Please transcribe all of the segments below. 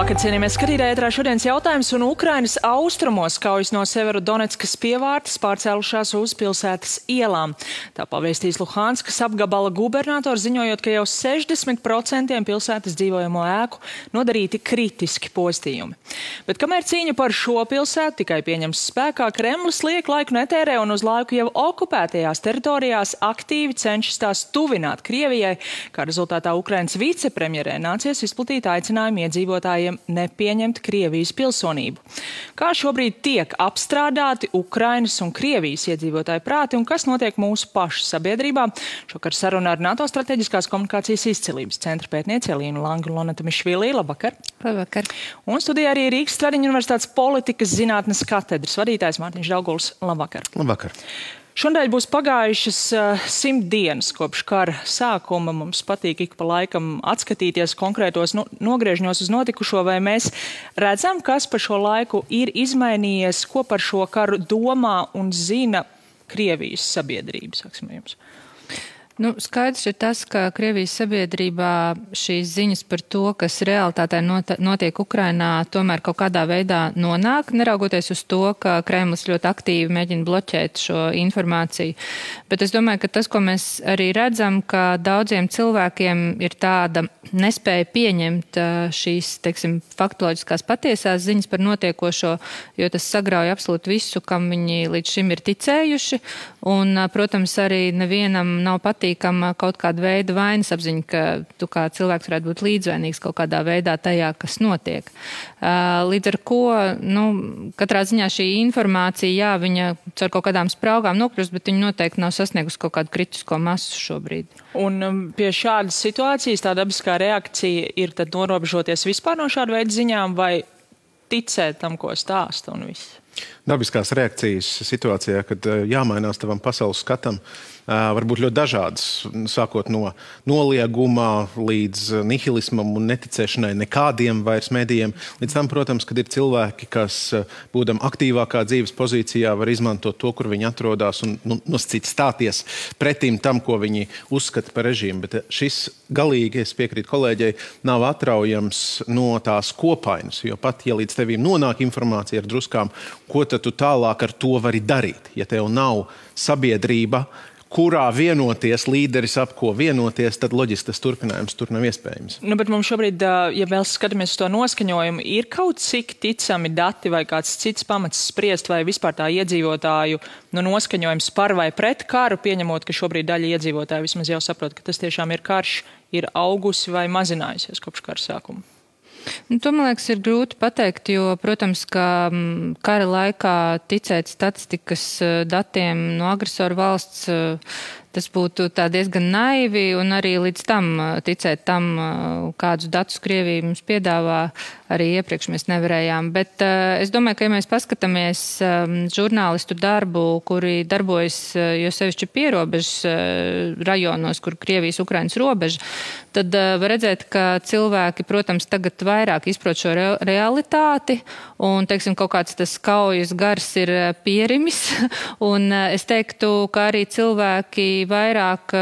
Labvakar, cienījamies skatītāji, ētrā šodienas jautājums, un Ukrainas austrumos kaujas no Severodoneckas pievārtes pārcēlušās uz pilsētas ielām. Tā pavēstīs Luhanskas apgabala gubernators, ziņojot, ka jau 60% pilsētas dzīvojamo ēku nodarīti kritiski postījumi. Bet kamēr cīņa par šo pilsētu tikai pieņems spēkā, Kremlis liek laiku netērē un uz laiku jau okupētajās teritorijās aktīvi cenšas tās tuvināt Krievijai, kā rezultātā Ukrainas vicepremjerē nācies izplatīt aicinājumu iedzīvotājiem nepieņemt Krievijas pilsonību. Kā šobrīd tiek apstrādāti Ukrainas un Krievijas iedzīvotāju prāti un kas notiek mūsu pašu sabiedrībā? Šokar saruna ar NATO strateģiskās komunikācijas izcilības centra pētnieci Elīnu Langu un Lonatu Mišvilī. Labvakar! Labvakar! Un studijā arī Rīgas Stradiņu universitātes politikas zinātnes katedras vadītājs Mārtiņš Dauguls. Labvakar! Labvakar! Šodien būs pagājušas 100 dienas kopš kara sākuma. Mums patīk ik pa laikam atskatīties konkrētos nogriežņos uz notikušo, vai mēs redzam, kas pa šo laiku ir izmainījies, ko par šo karu domā un zina Krievijas sabiedrība, saksim jums. Skaidrs ir tas, ka Krievijas sabiedrībā šīs ziņas par to, kas realitātē notiek Ukrainā, tomēr kaut kādā veidā nonāk, neraugoties uz to, ka Kremlis ļoti aktīvi mēģina bloķēt šo informāciju. Bet es domāju, ka tas, ko mēs arī redzam, ka daudziem cilvēkiem ir tāda nespēja pieņemt šīs, teiksim, faktoloģiskās patiesās ziņas par notiekošo, jo tas sagrauj absolūti visu, kam viņi līdz šim ir ticējuši. Un, protams, arī nevienam nav patīkama kaut kāda veida vainas apziņa, ka tu kā cilvēks varētu būt līdzvainīgs kaut kādā veidā tajā, kas notiek. Līdz ar ko, katrā ziņā šī informācija, jā, viņa caur kaut kādām spraugām nokļūst, bet viņa noteikti nav sasniegusi kaut kādu kritisko masu šobrīd. Un pie šādas situācijas tā dabiskā reakcija ir tad norobežoties vispār no šāda veida ziņām vai ticēt tam, ko stāsta un viss? Dabiskās reakcijas situācijā, kad jāmainās tavam pasaules skatam, var būt ļoti dažādas, sākot no noliegumā līdz nihilismam un neticēšanai nekādiem vairs medijiem. Līdz tam, protams, kad ir cilvēki, kas būdam aktīvākā dzīves pozīcijā, var izmantot to, kur viņi atrodas un nosacīt stāties pretim tam, ko viņi uzskata par režīmu. Bet šis galīgi, es piekrītu kolēģei, nav atraujams no tās kopainas, jo pat, ja līdz tevīm nonāk informācija ar druskām, ko tad tu tālāk ar to vari darīt, ja tev nav sabiedrība, kurā vienoties, līderis ap ko vienoties, tad loģiski tas turpinājums tur nav iespējams. Bet mums šobrīd, ja vēl skatāmies uz to noskaņojumu, ir kaut cik ticami dati vai kāds cits pamats spriest, vai vispār tā iedzīvotāju noskaņojums par vai pret karu, pieņemot, ka šobrīd daļa iedzīvotāju vismaz jau saprot, ka tas tiešām ir karš, ir augusi vai mazinājusies kopš kara sākuma. To, man liekas, ir grūti pateikt, jo, protams, ka kara laikā ticēt statistikas datiem no agresoru valsts, tas būtu tā diezgan naivi, un arī līdz tam ticēt tam, kādus datus Krievija mums piedāvā, arī iepriekš mēs nevarējām. Bet es domāju, ka, ja mēs paskatāmies žurnālistu darbu, kuri darbojas jo sevišķi pierobežas rajonos, kur Krievijas Ukrainas robeža, tad var redzēt, ka cilvēki, protams, tagad vairāk izprot šo realitāti, un, teiksim, kaut kāds tas kaujas gars ir pierimis, un es teiktu, ka arī cilvēki vairāk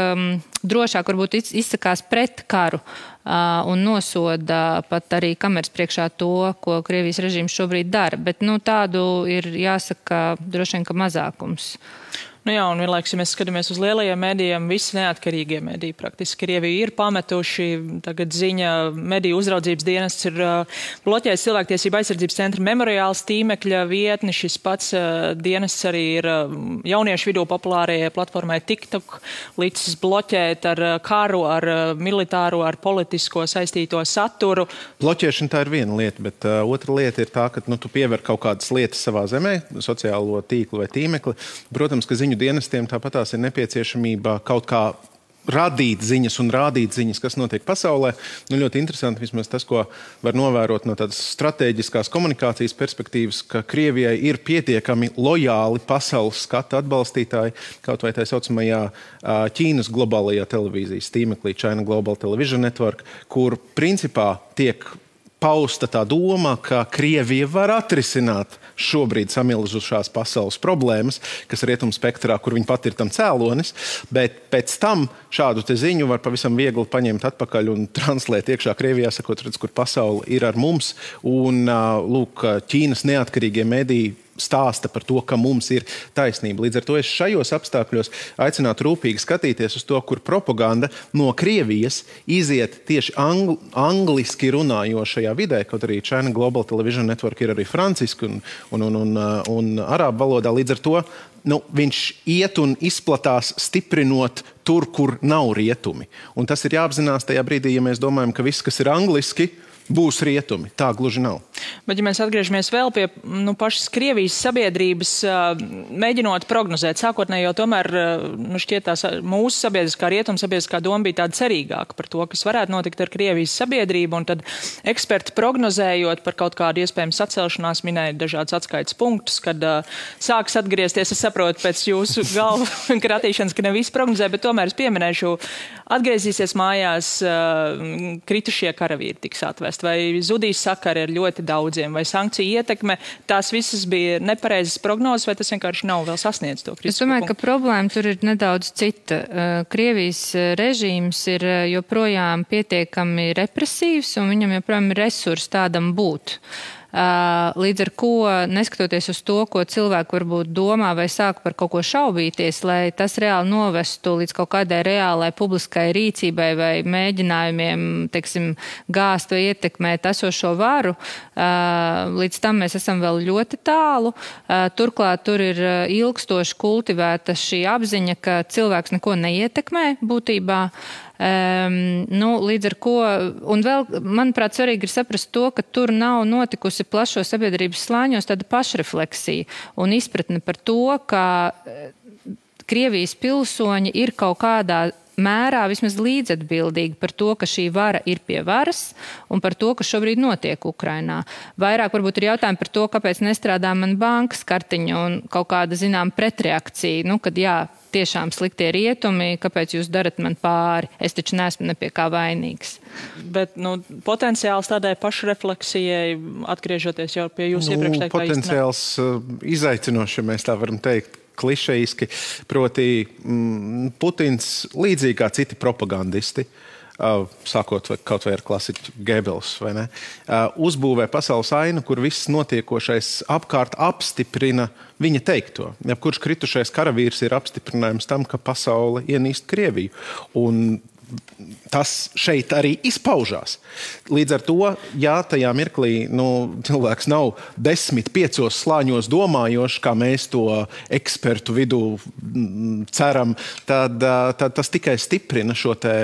drošāk varbūt izsakās pret karu un nosoda pat arī kameras priekšā to, ko Krievijas režīms šobrīd dara. Bet tādu ir jāsaka droši vien, ka mazākums. Jā, un vienlaikus, ja mēs skatāmies uz lielajiem medijiem, visi neatkarīgie mediji praktiski Krieviju ir pametuši. Tagad ziņa mediju uzraudzības dienests ir bloķējis cilvēktiesību aizsardzības centra memoriāls tīmekļa vietni. Šis pats dienests arī ir jauniešu vidū populārajai platformai TikTok licis bloķēt ar karu, ar militāro, ar politisko saistīto saturu. Bloķēšana tā ir viena lieta, bet otra lieta ir tā, ka tu piever kaut kādas lietas savā zemē, sociālo tīklu vai tīmekli. Protams, ka ziņu dienestiem tāpatās ir nepieciešamība kaut kā radīt ziņas un rādīt ziņas, kas notiek pasaulē. Ļoti interesanti vismaz tas, ko var novērot no tādas strateģiskās komunikācijas perspektīvas, ka Krievijai ir pietiekami lojāli pasaules skata atbalstītāji, kaut vai tā saucamajā Ķīnas globālajā televīzijas tīmeklī China Global Television Network, kur principā tiek pausta tā doma, ka Krievija var atrisināt šobrīd samilzušās pasaules problēmas, kas rietumspektrā, kur viņi pat ir tam cēlonis, bet pēc tam šādu te ziņu var pavisam viegli paņemt atpakaļ un translēt iekšā Krievijā, sakot, redz, kur pasaule ir ar mums, un lūk, Ķīnas neatkarīgie mediji stāsta par to, ka mums ir taisnība. Līdz ar to es šajos apstākļos aicinātu rūpīgi skatīties uz to, kur propaganda no Krievijas iziet tieši angliski runājošajā vidē, kaut arī China Global Television Network ir arī franciski un arābu valodā. Līdz ar to viņš iet un izplatās stiprinot tur, kur nav rietumi. Un tas ir jāapzinās tajā brīdī, ja mēs domājam, ka viss, kas ir angliski, būs rietumi. Tā gluži nav. Bet, ja mēs atgriežamies vēl pie pašas Krievijas sabiedrības, mēģinot prognozēt, sākotnēji jau tomēr šķiet tās mūsu sabiedriskā rietuma sabiedriskā doma bija tāda cerīgāka par to, kas varētu notikt ar Krievijas sabiedrību, un tad eksperti prognozējot par kaut kādu iespējamu sacelšanās minēja dažādas atskaites punktus, kad sāks atgriezties, es saprotu pēc jūsu galvu kratīšanas, ka ne visi prognozē, bet tomēr es pieminēšu, atgriezīsies mājās kritušie karavīri tiks atvest, vai zudīs sakari ar ļoti daudziem, vai sankciju ietekme, tās visas bija nepareizas prognozes, vai tas vienkārši nav vēl sasniedz to kritisko punktu? Es domāju, ka problēma tur ir nedaudz cita. Krievijas režīms ir joprojām pietiekami represīvs, un viņam joprojām ir resursi tādam būt. Līdz ar ko, neskatoties uz to, ko cilvēki varbūt domā vai sāk par kaut ko šaubīties, lai tas reāli novestu līdz kaut kādai reālai publiskai rīcībai vai mēģinājumiem, teiksim, gāzt vai ietekmēt esošo varu, līdz tam mēs esam vēl ļoti tālu. Turklāt tur ir ilgstoši kultivēta šī apziņa, ka cilvēks neko neietekmē būtībā. Līdz ar ko, un vēl, manuprāt, svarīgi ir saprast to, ka tur nav notikusi plašo sabiedrības slāņos tāda pašrefleksija un izpratne par to, ka Krievijas pilsoņi ir kaut kādā mērā vismaz līdzatbildīgi par to, ka šī vara ir pie varas un par to, kas šobrīd notiek Ukrainā. Vairāk varbūt ir jautājumi par to, kāpēc nestrādā man bankas kartiņa un kaut kāda, zinām, pretreakcija, kad jā, tiešām sliktie rietumi, kāpēc jūs darat man pāri? Es taču neesmu ne pie kā vainīgs. Bet, potenciāls tādai pašrefleksijai, atgriežoties jau pie jūsu iepriekš teiktā potenciāls izaicinoši, mēs tā varam teikt, klišejiski, proti Putins līdzīgi kā citi propagandisti, sākot kaut vai ar klasiķu Gebels, vai ne, uzbūvē pasaules ainu, kur viss notiekošais apkārt apstiprina viņa teikto. Jebkurš kritušais karavīrs ir apstiprinājums tam, ka pasaule ienīst Krieviju. Un tas šeit arī izpaužās. Līdz ar to, ja tajā mirklī cilvēks nav 10-5 slāņos domājošs, kā mēs to ekspertu vidū ceram, tad tas tikai stiprina šo te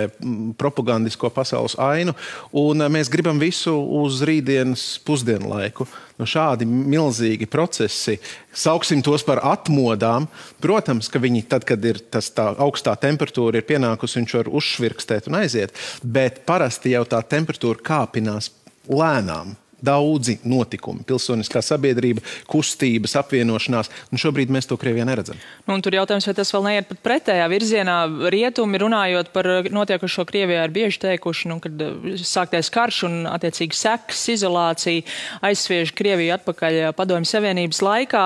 propagandisko pasaules ainu, un mēs gribam visu uz rītdienas pusdienlaiku. Šādi milzīgi procesi, sauksim tos par atmodām. Protams, ka viņi tad, kad ir tā augstā temperatūra ir pienākusi, viņš var uzšvirkstēt un aiziet, bet parasti jau tā temperatūra kāpinās lēnām. Daudzi notikumi, pilsoniskā sabiedrība, kustības, apvienošanās, un šobrīd mēs to Krievijā neredzam. Un tur jautājums, vai tas vēl neiet pat pretējā virzienā. Rietumi, runājot par notiekušo Krievijā, ir bieži teikuši, kad sāktais karš un attiecīgi sekas, izolācija aizsviež Krieviju atpakaļ Padomju Savienības laikā.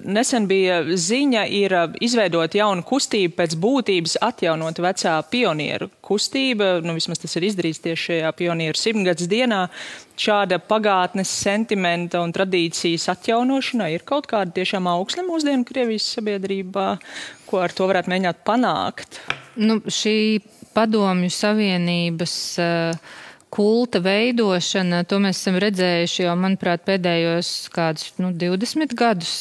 Nesen bija ziņa ir izveidot jaunu kustību pēc būtības atjaunot vecā pionieru kustība. Vismaz tas ir izdarīts tieši šajā pionieru 100-gads dienā. Šāda pagātnes sentimenta un tradīcijas atjaunošana ir kaut kāda tiešām augsne mūsdienu Krievijas sabiedrībā, ko ar to varētu mēģināt panākt? Šī Padomju Savienības kulta veidošana, to mēs esam redzējuši jau, manuprāt, pēdējos kādus 20 gadus.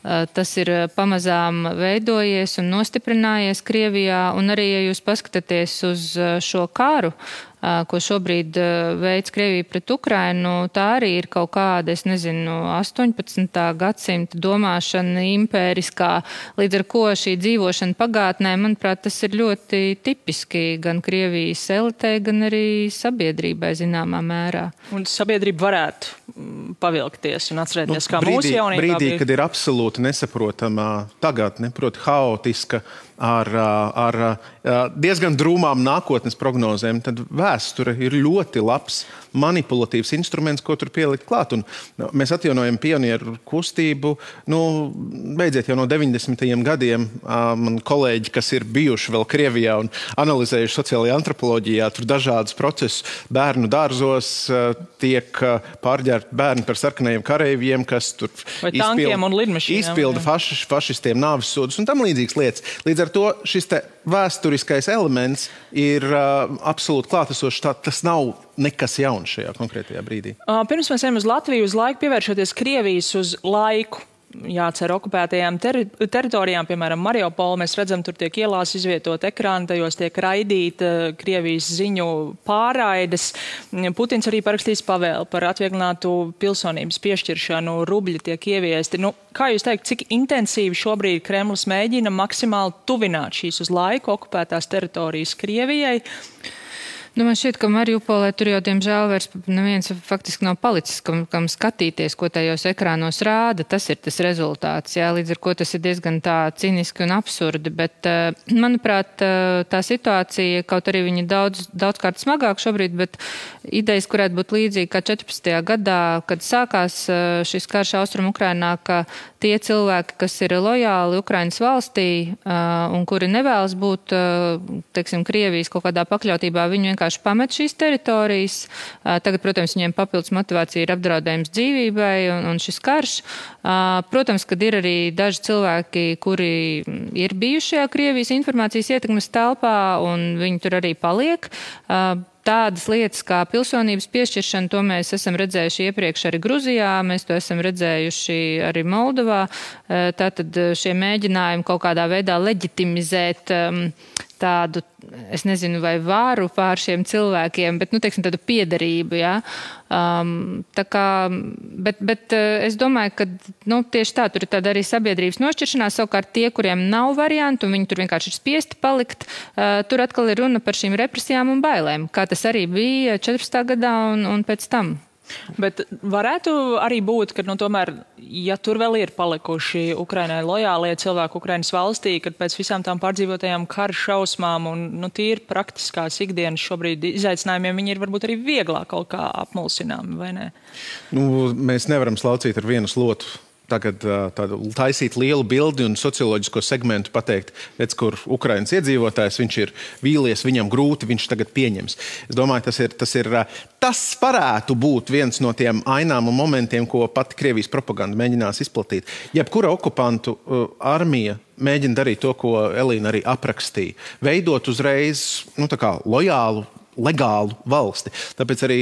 Tas ir pamazām veidojies un nostiprinājies Krievijā, un arī, ja jūs paskatāties uz šo karu, ko šobrīd veids Krievija pret Ukrainu, tā arī ir kaut kāda, 18. gadsimta domāšana impēriskā, līdz ar ko šī dzīvošana pagātnē, manuprāt, tas ir ļoti tipiski gan Krievijas elitei, gan arī sabiedrībai zināmā mērā. Un sabiedrība varētu pavilkties un atcerēties, kā mūsu jaunībā brīdī, kad ir absolūti absolūti nesaprotama tagadne, proti haotiska, ar diezgan drūmām nākotnes prognozēm, tad vēsture ir ļoti labs manipulatīvs instruments, ko tur pielikt klāt. Un mēs atjaunojam pionieru kustību. Beidziet jau no 90. gadiem. Man kolēģi, kas ir bijuši vēl Krievijā un analizējuši sociālajā antropoloģijā, tur dažādus procesus. Bērnu dārzos tiek pārģērti bērni par sarkanajiem kareiviem, kas tur izpilda fašistiem nāves sodus un tam līdzīgas lietas. Līdz ar to šis te vēsturiskais elements ir absolūti klātesošs. Tas nav nekas jauns šajā konkrētajā brīdī. Pirms mēs ejam uz Latviju uz laiku, pievēršoties Krievijas uz laiku. Jācer okupētajām teritorijām, piemēram, Mariupolu, mēs redzam, tur tiek ielās izvietot ekrāni, tajos tiek raidīta Krievijas ziņu pārraides. Putins arī parakstīs pavēli par atvieglinātu pilsonības piešķiršanu, rubļi tiek ieviesti. Kā jūs teikt, cik intensīvi šobrīd Kremlis mēģina maksimāli tuvināt šīs uz laiku okupētās teritorijas Krievijai? Man šķiet, ka Mariupolē tur jau, diemžēl, vairs neviens faktiski nav palicis, kam skatīties, ko tajos ekrānos rāda. Tas ir tas rezultāts, jā, līdz ar ko tas ir diezgan tā ciniski un absurdi, bet, manuprāt, tā situācija, kaut arī viņa daudzkārt smagāk šobrīd, bet idejas, kurētu būt līdzīgi kā 14. gadā, kad sākās šis karš Austrum Ukrainā, ka tie cilvēki, kas ir lojāli Ukrainas valstī un kuri nevēlas būt, teiksim, Krievijas kaut kādā pakļautībā, viņi vienkārši pamet šīs teritorijas. Tagad, protams, viņiem papildus motivācija ir apdraudējums dzīvībai un šis karš. Protams, kad ir arī daži cilvēki, kuri ir bijuši šajā Krievijas informācijas ietekmes telpā un viņi tur arī paliek. Tādas lietas kā pilsonības piešķiršana, to mēs esam redzējuši iepriekš arī Gruzijā, mēs to esam redzējuši arī Moldovā. Tātad šie mēģinājumi kaut kādā veidā leģitimizēt tādu, es nezinu, vai vāru pār šiem cilvēkiem, bet, teiksim, tādu piederību, jā. Tā kā, bet es domāju, ka, tieši tā, tur ir tāda arī sabiedrības nošķiršanās, savukārt tie, kuriem nav variantu, un viņi tur vienkārši ir spiesti palikt, tur atkal ir runa par šīm represijām un bailēm, kā tas arī bija 14. gadā un pēc tam. Bet varētu arī būt, ka, tomēr, ja tur vēl ir palikuši Ukrainai lojālie cilvēki Ukrainas valstī, kad pēc visām tām pārdzīvotajām kara šausmām un tīri praktiskās ikdienas šobrīd izaicinājumiem, viņi ir varbūt arī vieglāk kaut kā apmulsināmi, vai ne? Mēs nevaram slaucīt ar vienu slotu. Tagad taisīt lielu bildi un socioloģisko segmentu pateikt, redz, kur Ukrainas iedzīvotājs, viņš ir vīlies, viņam grūti, viņš tagad pieņems. Es domāju, tas varētu būt viens no tiem ainām un momentiem, ko pati Krievijas propaganda mēģinās izplatīt. Jebkura okupantu armija mēģina darīt to, ko Elīna arī aprakstīja. Veidot uzreiz, lojālu, legālu valsti. Tāpēc arī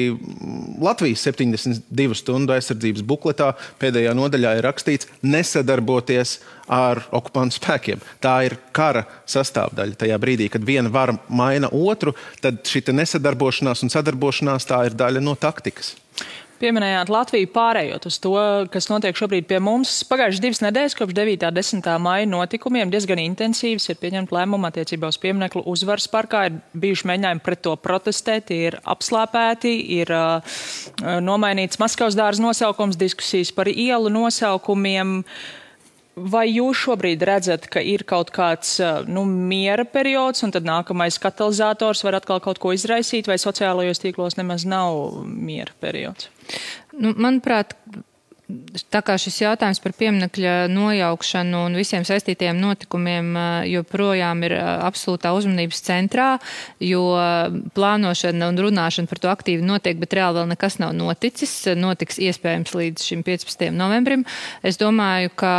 Latvijas 72 stundu aizsardzības bukletā pēdējā nodaļā ir rakstīts nesadarboties ar okupantu spēkiem. Tā ir kara sastāvdaļa. Tajā brīdī, kad viena vara maina otru, tad šita nesadarbošanās un sadarbošanās tā ir daļa no taktikas. Pieminējāt Latviju pārējot uz to, kas notiek šobrīd pie mums. Pagājušas 2 nedēļas kopš 9. 10. maija notikumiem diezgan intensīvs ir pieņemt lēmumu attiecībā uz piemineklu Uzvaras parkā. Ir bijuši mēģinājumi pret to protestēt, ir apslāpēti, ir nomainīts Maskavas dārza nosaukums, diskusijas par ielu nosaukumiem. Vai jūs šobrīd redzat, ka ir kaut kāds miera periods un tad nākamais katalizators var atkal kaut ko izraisīt, vai sociālajos tīklos nemaz nav miera periods? Manuprāt, tā kā šis jautājums par pieminekļa nojaukšanu un visiem saistītajiem notikumiem joprojām ir absolūtā uzmanības centrā, jo plānošana un runāšana par to aktīvi notiek, bet reāli vēl nekas nav noticis. Notiks iespējams līdz šim 15. novembrim. Es domāju, ka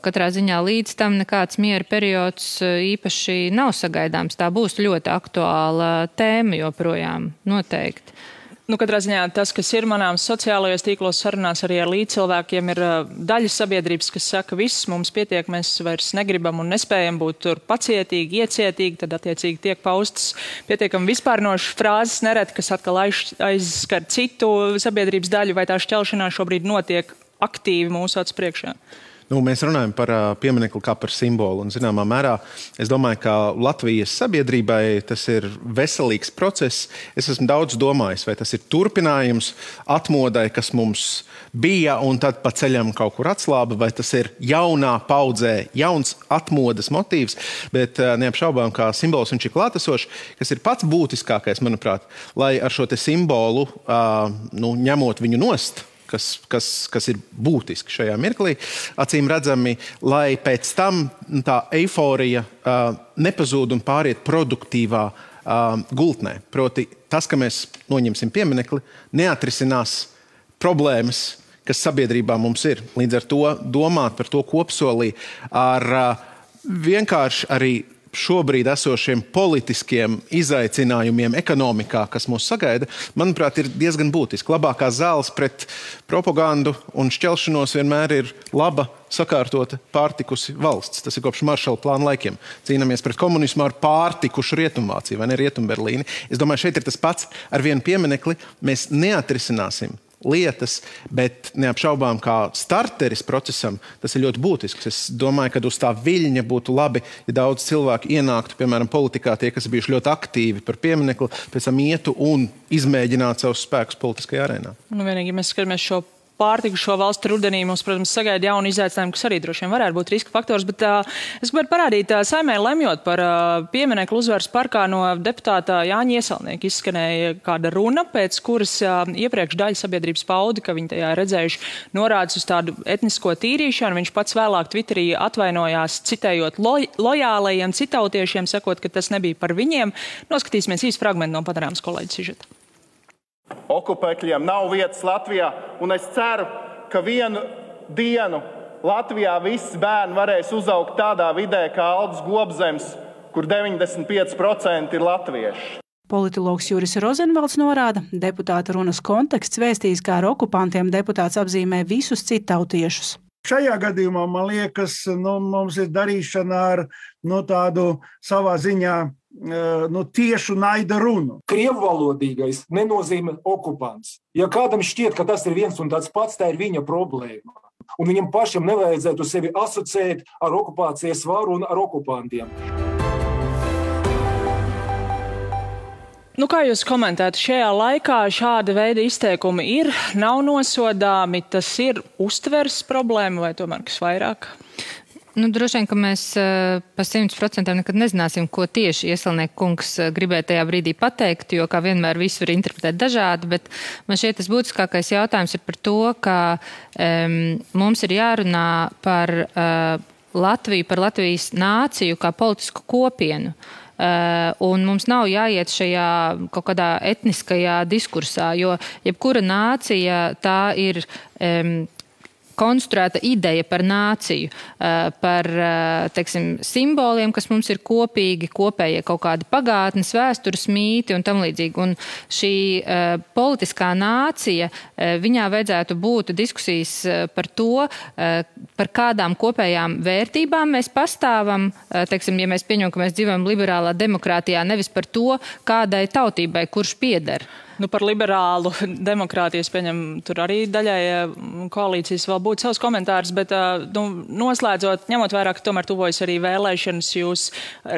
katrā ziņā līdz tam nekāds miera periods īpaši nav sagaidāms. Tā būs ļoti aktuāla tēma joprojām, noteikti. Katrā ziņā tas, kas ir manāms sociālajos tīklos sarunās arī ar līdzcilvēkiem, ir daļa sabiedrības, kas saka, viss mums pietiek, mēs vairs negribam un nespējam būt tur pacietīgi, iecietīgi, tad attiecīgi tiek paustas pietiekami vispārnošas frāzes nereti, kas atkal aizskar citu sabiedrības daļu, vai tā šķelšanās šobrīd notiek aktīvi mūsu acu priekšā? Mēs runājam par pieminekli kā par simbolu. Un, zināmā mērā, es domāju, ka Latvijas sabiedrībai tas ir veselīgs process. Es esmu daudz domājis, vai tas ir turpinājums atmodai, kas mums bija, un tad pa ceļam kaut kur atslāba, vai tas ir jaunā paudzē, jauns atmodas motīvs. Bet neapšaubām, kā simbols viņš ir klātesošs, kas ir pats būtiskākais, manuprāt, lai ar šo te simbolu, ņemot viņu nost, kas ir būtiski šajā mirklī, acīm redzami, lai pēc tam tā eiforija nepazūd un pāriet produktīvā gultnē. Proti, tas, ka mēs noņemsim pieminekli, neatrisinās problēmas, kas sabiedrībā mums ir. Līdz ar to domāt par to kopsolī ar vienkārši arī šobrīd esošiem politiskiem izaicinājumiem ekonomikā, kas mūs sagaida, manuprāt, ir diezgan būtiski. Labākā zāles pret propagandu un šķelšanos vienmēr ir laba, sakārtota, pārtikusi valsts. Tas ir kopš Maršala plāna laikiem. Cīnāmies pret komunismu ar pārtikušu Rietumvāciju, vai ne Rietumberlīni. Es domāju, šeit ir tas pats ar vienu pieminekli. Mēs neatrisināsim lietas, bet neapšaubām kā starteris procesam, tas ir ļoti būtisks. Es domāju, ka uz tā viļņa būtu labi, ja daudz cilvēku ienāktu, piemēram, politikā, tie, kas bijuši ļoti aktīvi par pieminekli, pēc tam ietu un izmēģinātu savus spēkus politiskajā arēnā. Vienīgi, mēs skatāmies šo pārtikušo valstu rudenī, mums, protams, sagaida jauni izaicinājumi, kas arī droši vien varētu būt riska faktors, bet es gribētu parādīt, Saeimē lemjot par pieminekli Uzvaras parkā no deputāta Jāņa Ieselnieka izskanēja kāda runa, pēc kuras iepriekš daļa sabiedrības pauda, ka viņi tajā redzējuši norādes uz tādu etnisko tīrīšanu. Viņš pats vēlāk Twitterī atvainojās, citējot lojālajiem citautiešiem, sakot, ka tas nebija par viņiem. Noskatīsimies īsti fragmentu no Panorāmas kolēģa sižeta. Okupēkļiem nav vietas Latvijā, un es ceru, ka vienu dienu Latvijā visi bērni varēs uzaugt tādā vidē kā Aldis Gobzems, kur 95% ir latvieši. Politologs Juris Rozenvalds norāda, deputāta runas konteksts vēstīs, kā ar okupantiem deputāts apzīmē visus citautiešus. Šajā gadījumā, man liekas, mums ir darīšana ar tādu savā ziņā tiešu naida runu. Krievvalodīgais nenozīmē okupants. Ja kādam šķiet, ka tas ir viens un tāds pats, tā ir viņa problēma. Un viņam pašam nevajadzētu sevi asociēt ar okupācijas varu un ar okupantiem. Kā jūs komentētu, šajā laikā šāda veida izteikumi nav nosodāmi, tas ir uztveres problēma vai tomēr kas vairāk? Droši vien, ka mēs pa 100% nekad nezināsim, ko tieši Ieselnieka kungs gribēja tajā brīdī pateikt, jo kā vienmēr visu var interpretēt dažādi, bet man šķiet tas būtiskākais jautājums ir par to, ka mums ir jārunā par Latviju, par Latvijas nāciju kā politisku kopienu. Un mums nav jāiet šajā kaut kādā etniskajā diskursā, jo jebkura nācija tā ir konstruēta ideja par nāciju, par, teiksim, simboliem, kas mums ir kopīgi, kopējie kaut kādi pagātnes, vēstures mīti un tam līdzīgi. Un šī politiskā nācija, viņā vajadzētu būt diskusijas par to, par kādām kopējām vērtībām mēs pastāvam, teiksim, ja mēs pieņemam, ka mēs dzīvojam liberālā demokrātijā, nevis par to, kādai tautībai, kurš pieder. Par liberālu demokrātiju, pieņem, tur arī daļai koalīcijas vēl būtu savs komentārs, bet noslēdzot, ņemot vērā, ka tomēr tuvojas arī vēlēšanas, jūs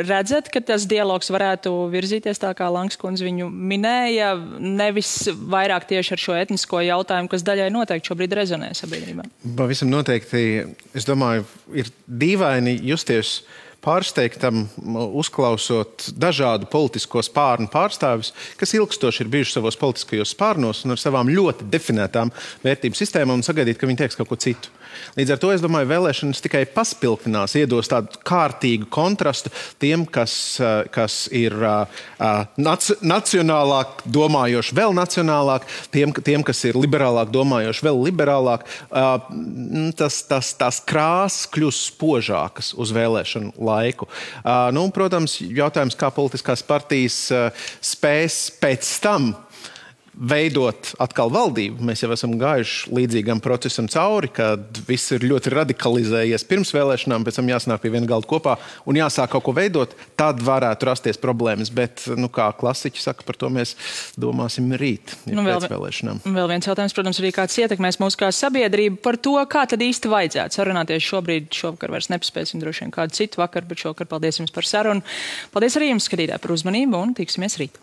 redzat, ka tas dialogs varētu virzīties tā, kā Langs kundze viņu minēja, nevis vairāk tieši ar šo etnisko jautājumu, kas daļai noteikti šobrīd rezonē sabiedrībā? Pavisam noteikti, es domāju, ir dīvaini justies pārsteigtam, uzklausot dažādu politisko spārnu pārstāvis, kas ilgstoši ir bijuši savos politiskajos spārnos un ar savām ļoti definētām vērtību sistēmām un sagaidīt, ka viņi teiks kaut ko citu. Līdz ar to, es domāju, vēlēšanas tikai paspilgtinās, iedos tādu kārtīgu kontrastu tiem, kas ir nacionālāk domājoši, vēl nacionālāk, tiem, kas ir liberālāk domājoši, vēl liberālāk. Tās krāsas kļūst spožākas uz vēlēšanu laiku. Protams, jautājums, kā politiskās partijas spēs pēc tam veidot atkal valdību. Mēs jau esam gājuši līdzīgam procesam cauri, kad viss ir ļoti radikalizējies pirms vēlēšanām, pēc tam jāsanāk pie viena galda kopā un jāsāk kaut ko veidot, tad varētu rasties problēmas. Bet, kā klasiķi saka, par to mēs domāsim rīt, pēc vēlēšanām. Vēl viens jautājums, protams, arī kāds ietekmēs mūsu kā sabiedrību par to, kā tad īsti vajadzētu sarunāties šovakar vairs nepaspēsim droši vien kādu citu vakaru, bet šovakar paldies jums par sarunu. Paldies arī jums, skatītāji, par uzmanību un tiksimies rīt.